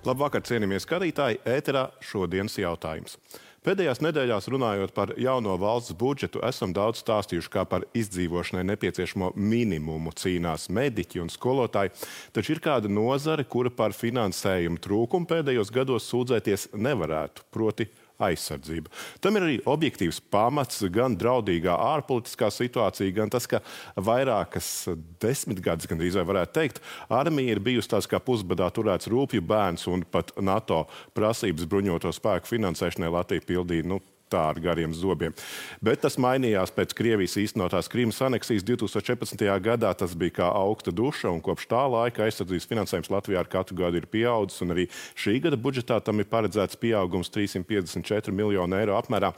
Labvakar, cienījamie skatītāji, ēterā šodienas jautājums. Pēdējās nedēļās runājot par jauno valsts budžetu, esam daudz stāstījuši, kā par izdzīvošanai nepieciešamo minimumu cīnās mediķi un skolotāji, taču ir kāda nozare, kura par finansējumu trūkumu pēdējos gados sūdzēties nevarētu, proti aizsardzība. Tam ir arī objektīvs pamats, gan draudīgā ārpolitiskā situācija, gan tas, ka vairākas desmitgades, gandrīz vai varētu teikt, armija ir bijusi tās kā pusbadā turēts rūpju bērns un pat NATO prasības bruņoto spēku finansēšanai Latvija pildīja, tā ar gariem zobiem. Bet tas mainījās pēc Krievijas īstenotās Krimas aneksijas 2014. gadā. Tas bija kā augsta duša, un kopš tā laika aizsardzības finansējums Latvijā ar katru gadu ir pieaudzis, un arī šī gada budžetā tam ir paredzēts pieaugums 354 miljonu eiro apmērā.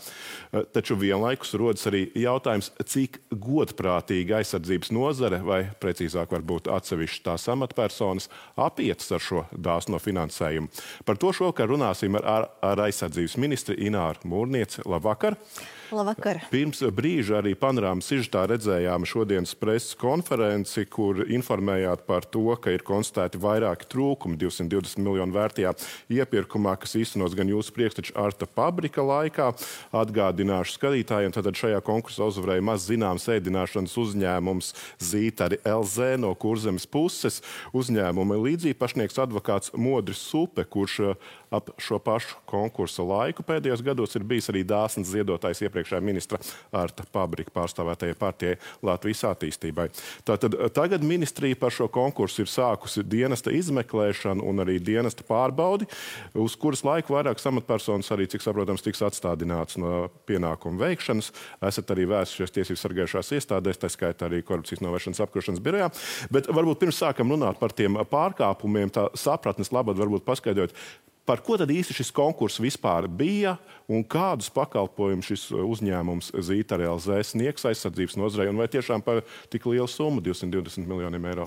Taču vienlaikus rodas arī jautājums, cik godprātīgi aizsardzības nozare, vai precīzāk varbūt atsevišķi tās amatpersonas, apietas ar šo dāsno finansējumu. Par to šovakar runāsim ar aizsardzības ministri Ināru Mūrnieci. Labvakar! Labvakar! Pirms brīža arī panorāmas sižetā redzējām šodienas preses konferenci, kur informējāt par to, ka ir konstatēti vairāki trūkumi 220 miljonu vērtajā iepirkumā, kas īstenos gan jūsu priekšteča Arta Pabrika laikā. Atgādināšu skatītājiem, tad šajā konkursā uzvarēja maz zināms ēdināšanas uzņēmums Zītari LZ no Kurzemes puses. Uzņēmuma līdzīpašnieks advokāts Modris Supe, kurš ap šo pašu konkursa laiku pēdējos gados ir bijis arī dāsns ziedotājs iepriekšējā ministra Arta Pabrika pārstāvētajai partijai Latvijas attīstībai. Tātad tagad ministrija par šo konkursu ir sākusi dienesta izmeklēšanu un arī dienesta pārbaudi, uz kuras laiku vairākas amatpersonas arī, cik saprotams, tiks atstādināts no pienākumu veikšanas. Esat arī vērsušies tiesību sargājušās iestādēs, tā skaitā arī korupcijas novēršanas apkarošanas birojā. Bet varbūt pirms sākam runāt par tiem pārkāpumiem, tā sapratnes labad varbūt paskaidrot, par ko tad īsti šis konkurss vispār bija un kādus pakalpojumus šis uzņēmums Zītari LZ sniegs aizsardzības nozarei un vai tiešām par tik lielu summu 220 miljoniem eiro?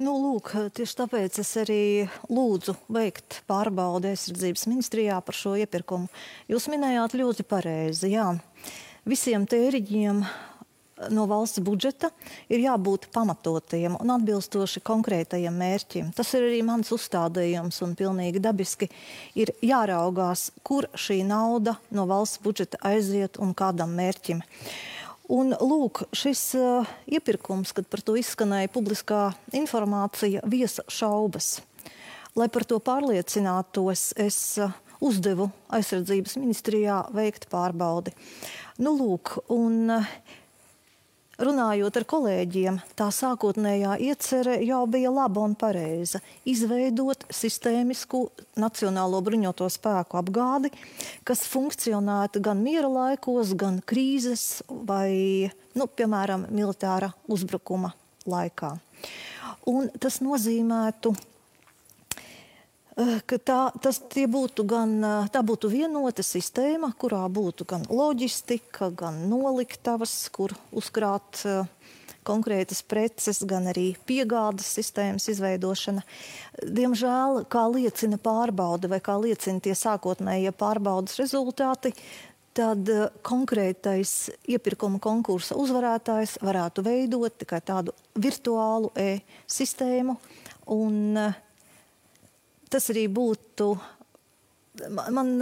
Lūk, tieši tāpēc es arī lūdzu veikt pārbaudi aizsardzības ministrijā par šo iepirkumu. Jūs minējāt ļoti pareizi, jā. Visiem tēriņiem no valsts budžeta ir jābūt pamatotiem un atbilstoši konkrētajiem mērķiem. Tas ir arī mans uzstādījums un pilnīgi dabiski ir jāraugās, kur šī nauda no valsts budžeta aiziet un kādam mērķim. Un lūk, šis iepirkums, kad par to izskanēja publiskā informācija, viesa šaubas. Lai par to pārliecinātos, es uzdevu aizsardzības ministrijā veikt pārbaudi. Lūk, un runājot ar kolēģiem, tā sākotnējā iecere jau bija laba un pareiza. Izveidot sistēmisku nacionālo bruņoto spēku apgādi, kas funkcionētu gan miera laikos, gan krīzes vai, piemēram, militāra uzbrukuma laikā. Un tas nozīmētu, ka tā būtu vienota sistēma, kurā būtu gan loģistika, gan noliktavas, kur uzkrāt konkrētas preces, gan arī piegādes sistēmas izveidošana. Diemžēl, kā liecina pārbaude vai kā liecina tie sākotnējie pārbaudas rezultāti, tad konkrētais iepirkuma konkursa uzvarētājs varētu veidot tikai tādu virtuālu e-sistēmu un tas arī būtu, man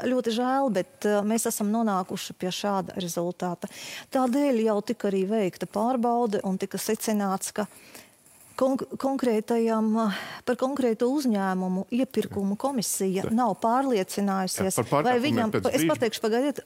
ļoti žēl, bet mēs esam nonākuši pie šāda rezultāta. Tādēļ jau tika arī veikta pārbaude un tika secināts, ka par konkrēto uzņēmumu iepirkumu komisija nav pārliecinājusies,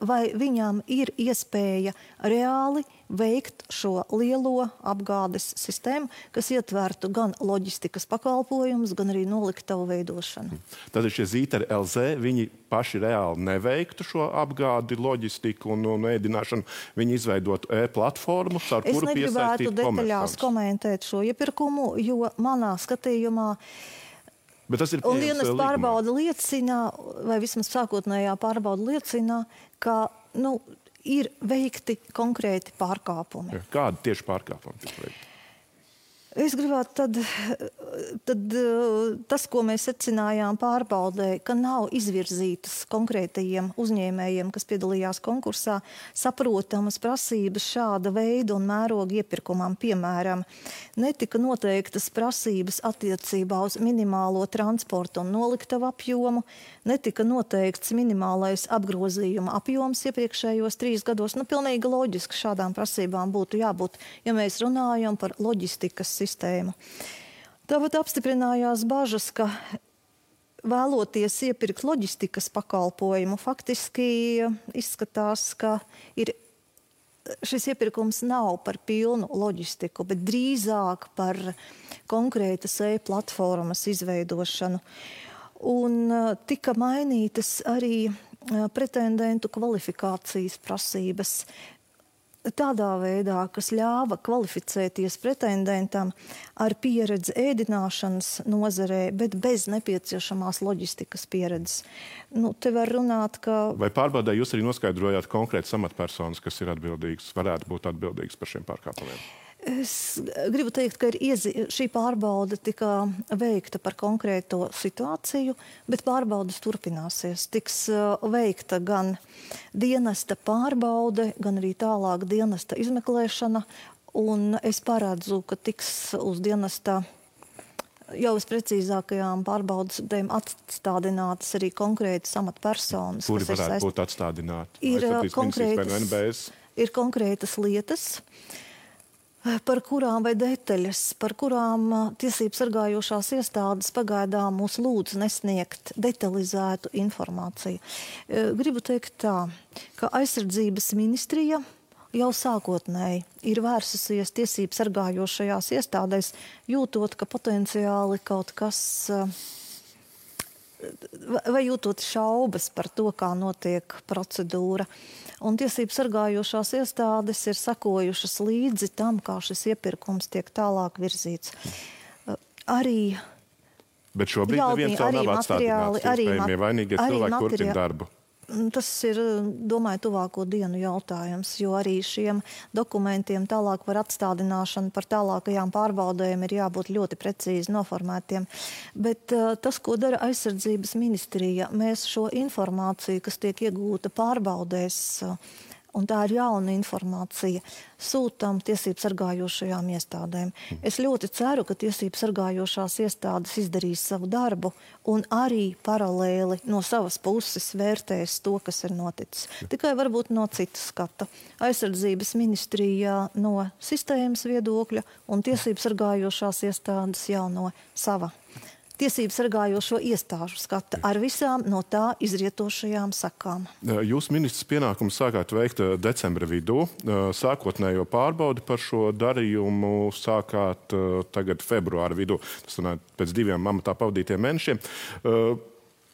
vai viņam ir iespēja reāli veikt šo lielo apgādes sistēmu, kas ietvertu gan loģistikas pakalpojumus, gan arī noliktavu veidošanu. Tad šie Zītari LZ, viņi paši reāli neveiktu šo apgādi, loģistiku un ēdināšanu. Viņi izveidotu e-platformu, ar kuru piesaistīt komersantus. Es negribētu detaļās komentēt šo iepirkumu, jo manā skatījumā un dienas pārbauda liecina, vai vismaz sākotnējā pārbauda liecina, ka, ir veikti konkrēti pārkāpumi. Kādi tieši pārkāpumi tiek veikti? Es gribētu tad tas, ko mēs secinājām pārbaudē, ka nav izvirzītas konkrētajiem uzņēmējiem, kas piedalījās konkursā, saprotamas prasības šāda veida un mēroga iepirkumam. Piemēram, netika noteiktas prasības attiecībā uz minimālo transporta un noliktavu apjomu, netika noteikts minimālais apgrozījuma apjoms iepriekšējos 3 gados. Pilnīgi loģiski šādām prasībām būtu jābūt, ja mēs runājam par loģistikas sistēmu. Tāpat apstiprinājās bažas, ka vēloties iepirkt loģistikas pakalpojumu, faktiski izskatās, ka šis iepirkums nav par pilnu loģistiku, bet drīzāk par konkrētas e-platformas izveidošanu. Un tika mainītas arī pretendentu kvalifikācijas prasības tādā veidā, kas ļāva kvalificēties pretendentam ar pieredzi ēdināšanas nozarē, bet bez nepieciešamās loģistikas pieredzes. Te var runāt, ka... Vai pārbaudē jūs arī noskaidrojāt konkrētas amatpersonas, kas ir atbildīgas, varētu būt atbildīgas par šiem pārkāpumiem? Es gribu teikt, ka šī pārbaude tika veikta par konkrēto situāciju, bet pārbaudes turpināsies. Tiks veikta gan dienesta pārbaude, gan arī tālāk dienesta izmeklēšana, un es paredzu, ka tiks uz dienesta jau uz precīzākajām pārbaudas dēļ atstādinātas arī konkrētas amatpersonas. Kuri varētu būt atstādināti? Ir konkrētas lietas, par kurām vai detaļas, par kurām tiesību sargājošās iestādes pagaidām mūs lūdz nesniegt detalizētu informāciju. Gribu teikt tā, ka aizsardzības ministrija jau sākotnēji ir vērsusies tiesību sargājošajās iestādēs, jūtot, ka potenciāli kaut kas, vai jūtot šaubas par to, kā notiek procedūra. Un tiesību sargājošās iestādes ir sekojušas līdzi tam, kā šis iepirkums tiek tālāk virzīts. Bet šobrīd neviens vēl nav atstādināts. Iespējamie vainīgie cilvēki turpina darbu. Tas ir, domāju, tuvāko dienu jautājums, jo arī šiem dokumentiem tālāk par atstādināšanu, par tālākajām pārbaudēm ir jābūt ļoti precīzi noformētiem. Bet tas, ko dara aizsardzības ministrija, mēs šo informāciju, kas tiek iegūta pārbaudēs, un tā ir jauna informācija, sūtām tiesību sargājošajām iestādēm. Es ļoti ceru, ka tiesību sargājošās iestādes izdarīs savu darbu un arī paralēli no savas puses vērtēs to, kas ir noticis. Tikai varbūt no citas skata. Aizsardzības ministrijā no sistēmas viedokļa un tiesību sargājošās iestādes jau no sava tiesību sargājošo iestāžu skata ar visām no tā izrietošajām sakām. Jūs ministrs pienākumus sākāt veikt decembra vidū. Sākotnējo pārbaudi par šo darījumu sākāt tagad februāra vidū. Tas pēc 2 amatā pavadītiem mēnešiem.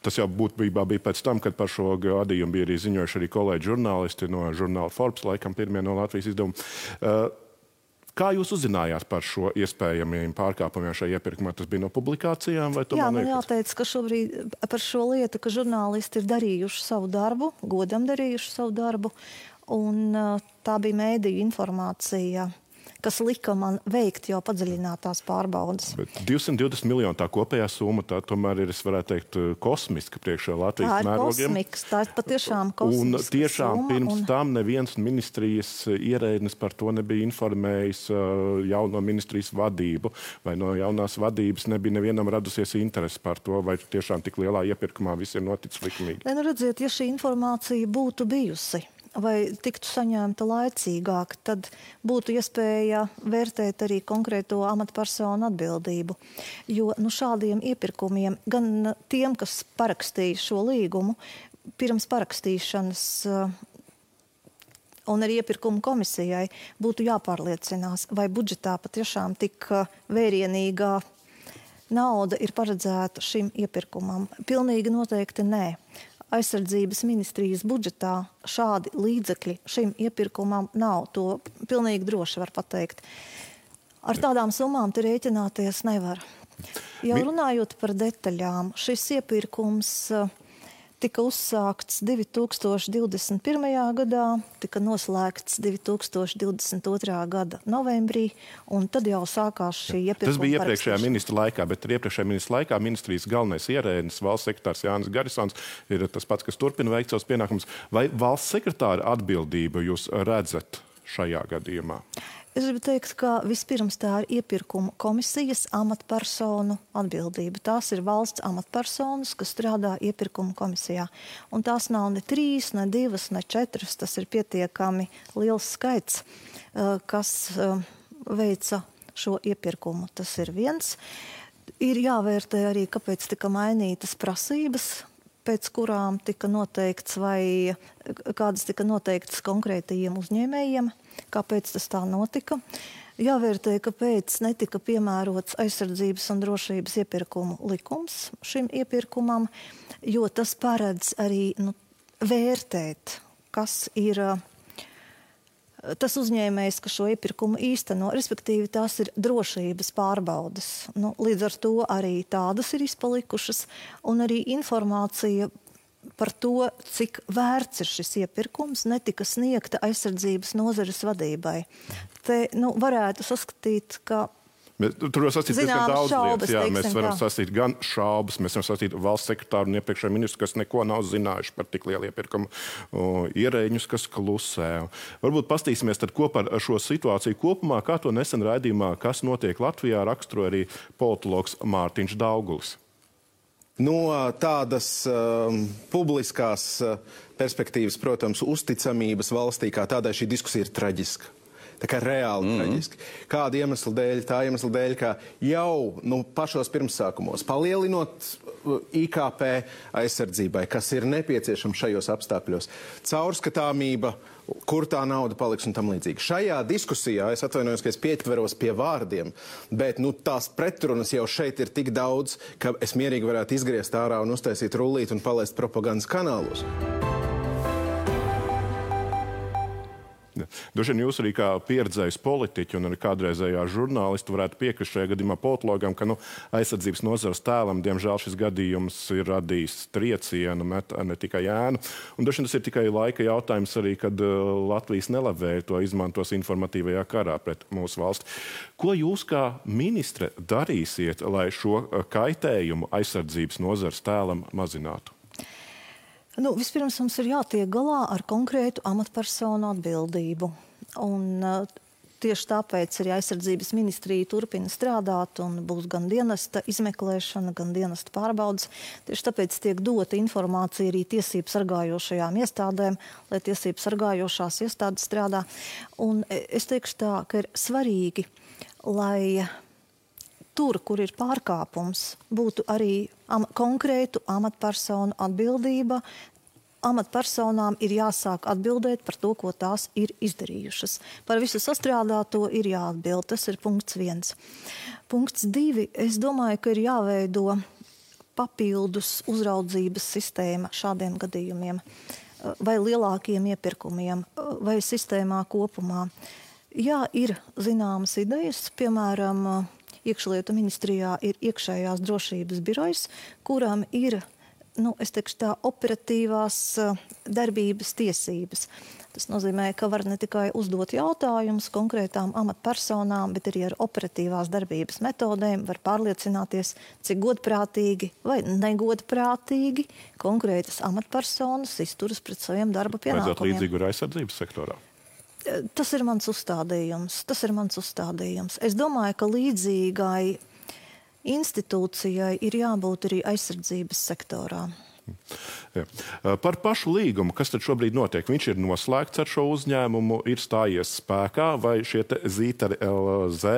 Tas jau būtībā bija pēc tam, kad par šo gadījumu bija arī ziņojuši arī kolēģi žurnālisti no žurnāla Forbes, laikam pirmie no Latvijas izdevuma. Kā jūs uzzinājāt par šo iespējamiem pārkāpumiem šajā iepirkumā? Tas bija no publikācijām? Vai Jā, man jāteic, ka šobrīd par šo lietu, ka žurnālisti ir darījuši savu darbu, godam darījuši savu darbu, un tā bija mēdīju informācija, kas lika man veikt jau padziļinātās pārbaudas. Bet 220 miljoni tā kopējā summa, tā tomēr ir, es varētu teikt, kosmiska priekšā Latvijas mērogiem. Tā ir patiešām kosmiska un tiešām summa, pirms tam neviens ministrijas ierēdnis par to nebija informējis jauno ministrijas vadību, vai no jaunās vadības nebija nevienam radusies interesi par to, vai tiešām tik lielā iepirkumā viss ir noticis likumīgi. Redziet, ja šī informācija būtu bijusi, vai tiktu saņemta laicīgāk, tad būtu iespēja vērtēt arī konkrēto amatpersonu atbildību. Jo šādiem iepirkumiem, gan tiem, kas parakstīja šo līgumu, pirms parakstīšanas un arī iepirkumu komisijai būtu jāpārliecinās, vai budžetā patiešām tik vērienīgā nauda ir paredzēta šim iepirkumam. Pilnīgi noteikti nē. Aizsardzības ministrijas budžetā šādi līdzekļi šim iepirkumam nav. To pilnīgi droši var pateikt. Ar tādām summām te rēķināties nevar. Jau runājot par detaļām, šis iepirkums tika uzsākts 2021. gadā, tika noslēgts 2022. gada novembrī, un tad jau sākās šī iepirkuma. Tas bija iepriekšējā ministra laikā, bet iepriekšējā ministra laikā ministrijas galvenais ierēdnis, valsts sekretārs Jānis Garisons, ir tas pats, kas turpina veikt savus pienākumus. Vai valsts sekretāra atbildību jūs redzat šajā gadījumā? Es gribu teikt, ka vispirms tā ir iepirkuma komisijas amatpersonu atbildība. Tās ir valsts amatpersonas, kas strādā iepirkuma komisijā. Un tās nav ne 3, ne 2, ne 4. Tas ir pietiekami liels skaits, kas veica šo iepirkumu. Tas ir viens. Ir jāvērtē arī, kāpēc tika mainītas prasības, pēc kurām tika noteikts vai kādas tika noteiktas konkrētajiem uzņēmējiem, kāpēc tas tā notika. Jāvērtē, kāpēc netika piemērots aizsardzības un drošības iepirkumu likums šim iepirkumam, jo tas paredz arī vērtēt, kas ir tas uzņēmējs, kas šo iepirkumu īsteno, respektīvi tās ir drošības pārbaudes. Līdz ar to arī tādas ir izpalikušas, un arī informācija par to, cik vērts ir šis iepirkums, netika sniegta aizsardzības nozares vadībai. Te varētu saskatīt, ka tur var sasīt diezgan daudz lietas. Jā, mēs varam sasīt gan šaubas, mēs varam sasīt valsts sekretāru un iepriekšējo ministru, kas neko nav zinājuši par tik lielu iepirkumu, ierēģņus, kas klusē. Varbūt pastīsimies tad kopā ar šo situāciju kopumā, kā to nesen raidījumā, kas notiek Latvijā, raksturoja arī politologs Mārtiņš Daugulis. No tādas publiskās perspektīvas, protams, uzticamības valstī kā tādai šī diskusija ir traģiska. Tā kā reāli traģiski. Kāda iemesla dēļ? Tā iemesla dēļ, ka jau pašos pirmsākumos, palielinot IKP aizsardzībai, kas ir nepieciešama šajos apstākļos, caurskatāmība, kur tā nauda paliks un tam līdzīgi. Šajā diskusijā, es atvainojos, ka es pietveros pie vārdiem, bet tās pretrunas jau šeit ir tik daudz, ka es mierīgi varētu izgriezt ārā un uztaisīt rullīt un palaist propagandas kanālos. Droši vien jūs arī kā pieredzējis politiķi un arī kādreizējā žurnālisti varētu piekrist šajā gadījumā politologam, ka aizsardzības nozares tēlam, diemžēl, šis gadījums ir radījis triecienu, ne tikai ēnu. Un droši vien tas ir tikai laika jautājums arī, kad Latvijas nelabvēji to izmantos informatīvajā karā pret mūsu valsti. Ko jūs kā ministre darīsiet, lai šo kaitējumu aizsardzības nozares tēlam mazinātu? Vispirms mums ir jātiek galā ar konkrētu amatpersonu atbildību. Un tieši tāpēc arī aizsardzības ministrija turpina strādāt un būs gan dienesta izmeklēšana, gan dienesta pārbaudas. Tieši tāpēc tiek dota informācija arī tiesību sargājošajām iestādēm, lai tiesību sargājošās iestādes strādā. Un es teikšu tā, ka ir svarīgi, lai tur, kur ir pārkāpums, būtu arī konkrētu amatpersonu atbildība. Amatpersonām ir jāsāk atbildēt par to, ko tās ir izdarījušas. Par visu sastrādāto ir jāatbild. Tas ir punkts 1. Punkts 2. Es domāju, ka ir jāveido papildus uzraudzības sistēma šādiem gadījumiem vai lielākiem iepirkumiem vai sistēmā kopumā. Jā, ir zināmas idejas, piemēram, Iekšlietu ministrijā ir iekšējās drošības birojs, kuram ir, es teikšu tā, operatīvās darbības tiesības. Tas nozīmē, ka var ne tikai uzdot jautājumus konkrētām amatpersonām, bet arī ar operatīvās darbības metodēm var pārliecināties, cik godprātīgi vai negodprātīgi konkrētas amatpersonas izturas pret saviem darba pienākumiem. Vajadzētu līdzīgu ar aizsardzības sektorā? Tas ir mans uzstādījums. Es domāju, ka līdzīgai institūcijai ir jābūt arī aizsardzības sektorā. Jā. Par pašu līgumu, kas tad šobrīd notiek? Viņš ir noslēgts ar šo uzņēmumu, ir stājies spēkā, vai šie Zītari LZ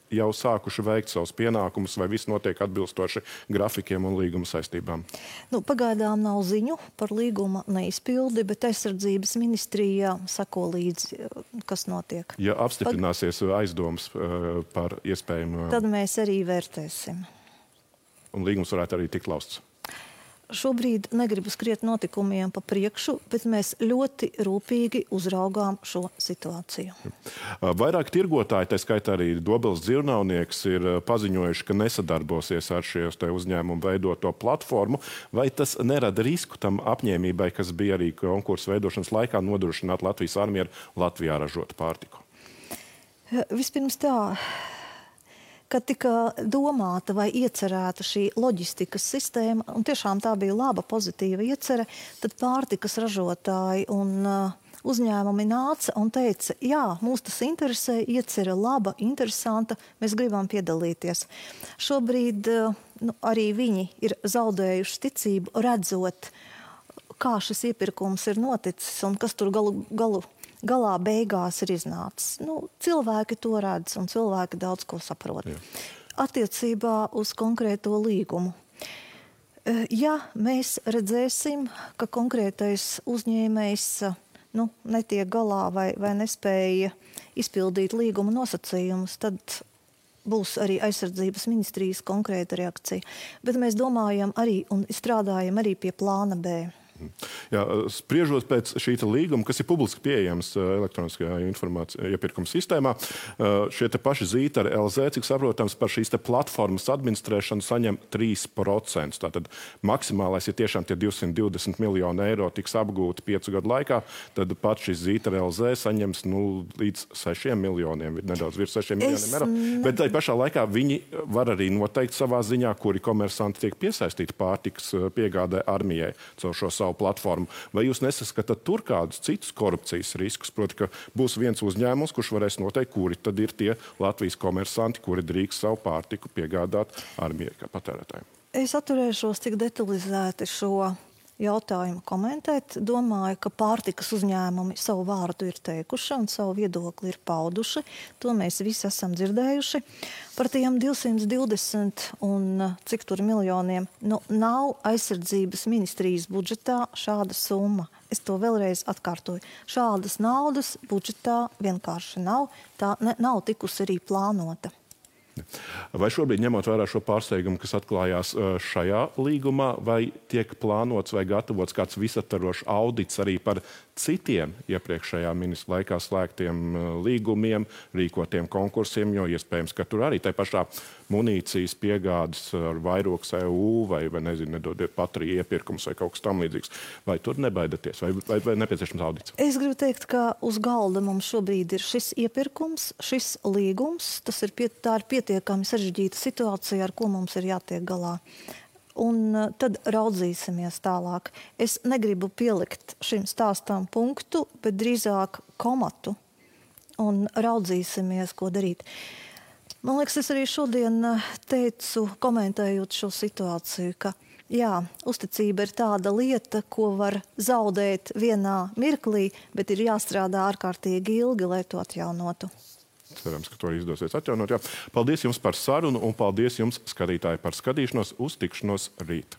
jau sākuši veikt savus pienākumus, vai viss notiek atbilstoši grafikiem un līguma saistībām? Pagaidām nav ziņu par līguma neizpildi, bet aizsardzības ministrijā sako līdzi, kas notiek. Ja apstiprināsies aizdomas par iespējamu... Tad mēs arī vērtēsim. Un līgums varētu arī tikt lausts? šobrīd negribu skriet notikumiem pa priekšu, bet mēs ļoti rūpīgi uzraugām šo situāciju. Vairāk tirgotāji, tā skaitā arī Dobeles dzīvnieks, ir paziņojuši, ka nesadarbosies ar šīs uzņēmumu veidoto platformu. Vai tas nerada risku tam apņēmībai, kas bija arī konkursu veidošanas laikā nodrošināt Latvijas armiju ar Latvijā ražotu pārtiku? Vispirms tā. Kad tika domāta vai iecerēta šī loģistikas sistēma, un tiešām tā bija laba, pozitīva iecere, tad pārtikas ražotāji un uzņēmumi nāca un teica, jā, mūs tas interesē, iecere laba, interesanta, mēs gribam piedalīties. Šobrīd arī viņi ir zaudējuši ticību, redzot, kā šis iepirkums ir noticis un kas tur galā beigās ir iznācis. Cilvēki to redz un cilvēki daudz ko saprot. Jā. Attiecībā uz konkrēto līgumu. Ja mēs redzēsim, ka konkrētais uzņēmējs netiek galā vai nespēja izpildīt līguma nosacījumus, tad būs arī aizsardzības ministrijas konkrēta reakcija. Bet mēs domājam arī un strādājam arī pie plāna B. Jā, spriežot pēc šī līguma, kas ir publiski pieejams elektroniskajā iepirkuma sistēmā, šie paši Zītari LZ, cik saprotams, par šīs platformas administrēšanu saņem 3%. Tātad maksimālais, ja tiešām tie 220 miljoni eiro tiks apgūti 5 gadu laikā, tad pat šis Zītari LZ saņems līdz 6 miljoniem, nedaudz virs 6 miljoniem eiro. Bet tai pašā laikā viņi var arī noteikt savā ziņā, kuri komersanti tiek piesaistīti pārtikas piegādē armijai caur šo savu platformu. Vai jūs nesaskatāt tur kādus citus korupcijas riskus? Proti, ka būs viens uzņēmums, kurš varēs noteikt, kuri tad ir tie Latvijas komersanti, kuri drīkst savu pārtiku piegādāt armijai kā patērētājiem? Es atturēšos tik detalizēti šo jautājumu komentēt. Domāju, ka pārtikas uzņēmumi savu vārdu ir teikuši un savu viedokli ir pauduši. To mēs visi esam dzirdējuši. Par tiem 220 un cik tur miljoniem nav aizsardzības ministrijas budžetā šāda summa. Es to vēlreiz atkārtoju. Šādas naudas budžetā vienkārši nav. Tā nav tikusi arī plānota. Vai šobrīd, ņemot vērā šo pārsteigumu, kas atklājās šajā līgumā, vai tiek plānots vai gatavots kāds visaptvarošs audits arī par citiem iepriekšējā ministra laikā slēgtiem līgumiem, rīkotiem konkursiem, jo iespējams, ka tur arī tai pašā munīcijas piegādes ar vairogs EU vai nezinu, nedodiet patriju iepirkums vai kaut kas tam līdzīgs. Vai tur nebaidaties? Vai nepieciešams audits? Es gribu teikt, ka uz galda mums šobrīd ir šis iepirkums, šis līgums. Tā ir pietiekami sarežģīta situācija, ar ko mums ir jātiek galā. Un tad raudzīsimies tālāk. Es negribu pielikt šim stāstam punktu, bet drīzāk komatu un raudzīsimies, ko darīt. Man liekas, es arī šodien teicu, komentējot šo situāciju, ka jā, uzticība ir tāda lieta, ko var zaudēt vienā mirklī, bet ir jāstrādā ārkārtīgi ilgi, lai to atjaunotu. Cerams, ka to izdosies atjaunot. Jā. Paldies jums par sarunu un paldies jums, skatītāji, par skatīšanos. Uz tikšanos rīt.